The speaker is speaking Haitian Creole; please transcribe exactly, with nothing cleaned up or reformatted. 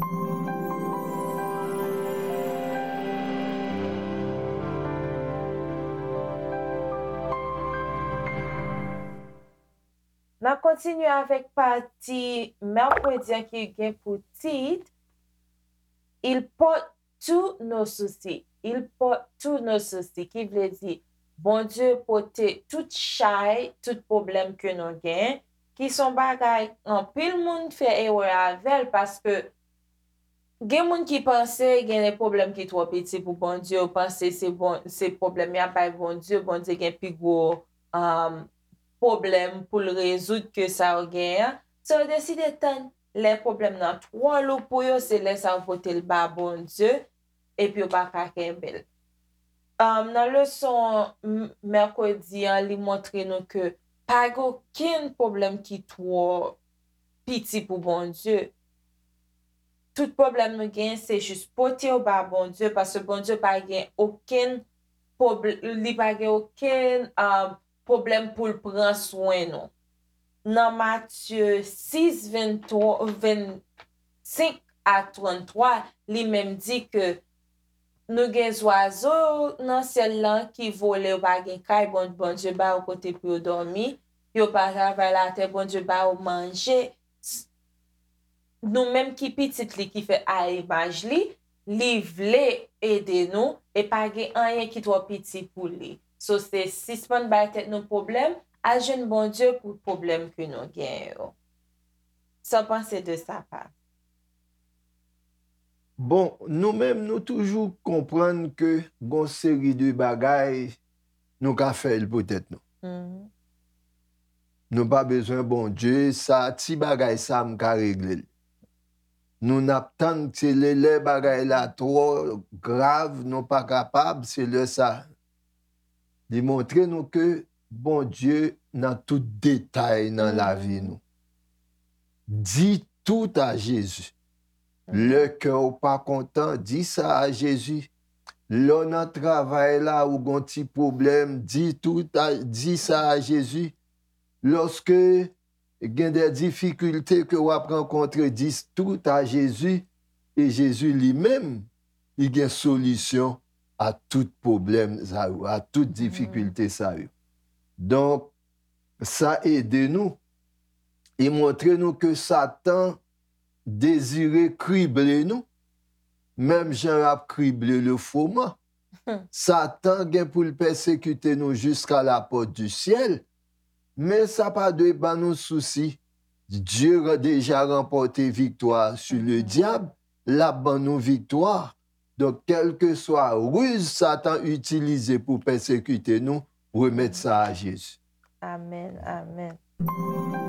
N ap kontinye avèk pati mèkredi an ki gen pou tit Il porte tous nos soucis. Il porte tous nos soucis, ki vle di Bondye pote tout chay, tout pwoblèm ke nou gen, ki son bagay anpil moun fè erè avè l, paske gen moun ki panse gen de pwoblèm ki twò piti pou Bondye, yo panse se bon, se pwoblèm y ap bay Bondye, Bondye gen pi gwo um, pwoblèm pou l rezoud ke sa yo genyen an. So yo deside tann lè pwoblèm nan twò lou pou yo, se lè sa yo pote l ba Bondye, epi yo pa ka kenbe l. Um, nan leson m- mèkredi an, li montre nou ke pa gen okenn pwoblèm ki twò piti pou Bondye. Tout pwoblèm nou gen, se jis pote yo ba Bondye, paske Bondye pa gen okenn pwob- li pa gen okenn um, pwoblèm pou l pran swen nou. Nan Matye sis, venntwa, vennsenk a tranntwa, li menm di ke nou gen zwazo nan syèl lan ki vole, yo pa gen kay, bon, Bondye ba yo kote pou yo dòmi, yo pa travay latè, Bondye ba yo manje. S- nou menm ki pitit li, ki fèt a imaj li, li vle ede nou, e pa gen anyen ki twò piti pou li. So, se sispann bay tèt nou pwoblèm, al jwenn Bondye pou pwoblèm ke nou gen yo. Sa w panse de sa, pa? Bon, nou menm, nou toujou konprann ke gon seri de bagay, nou ka fè l pou tèt nou. Nou pa bezwen Bondye, sa, ti bagay sa, m ka regle l. Nou n ap tann, se lè, lè bagay la twò grav, nou pa kapab, se lè sa. Li montre nou ke Bondye nan tout detay nan lavi nou. Di tout a Jezi. Lè kè w pa kontan, di sa a Jezi. Lè w nan travay la, ou gon ti pwoblèm, di tout a, di sa a Jezi. Lòske gen de difikilte ke w ap rankontre, di tout a Jezi. E Jezi li menm, li gen solisyon a tout pwoblèm sa yo, a tout difikilte sa yo. Donk, sa ede nou. Li montre nou ke Satan dezire krible nou, menm jan l ap krible le froment. Satan gen pou l pèsekite nou jusqu'à la porte du ciel, men sa pa dwe ban nou sousi. Dieu a déjà remporté victoire sur le diable, l ap ban nou viktwa. Donk, kèlkeswa riz Satan itilize pou pèsekite nou, remèt sa a Jezi. Amèn, amèn.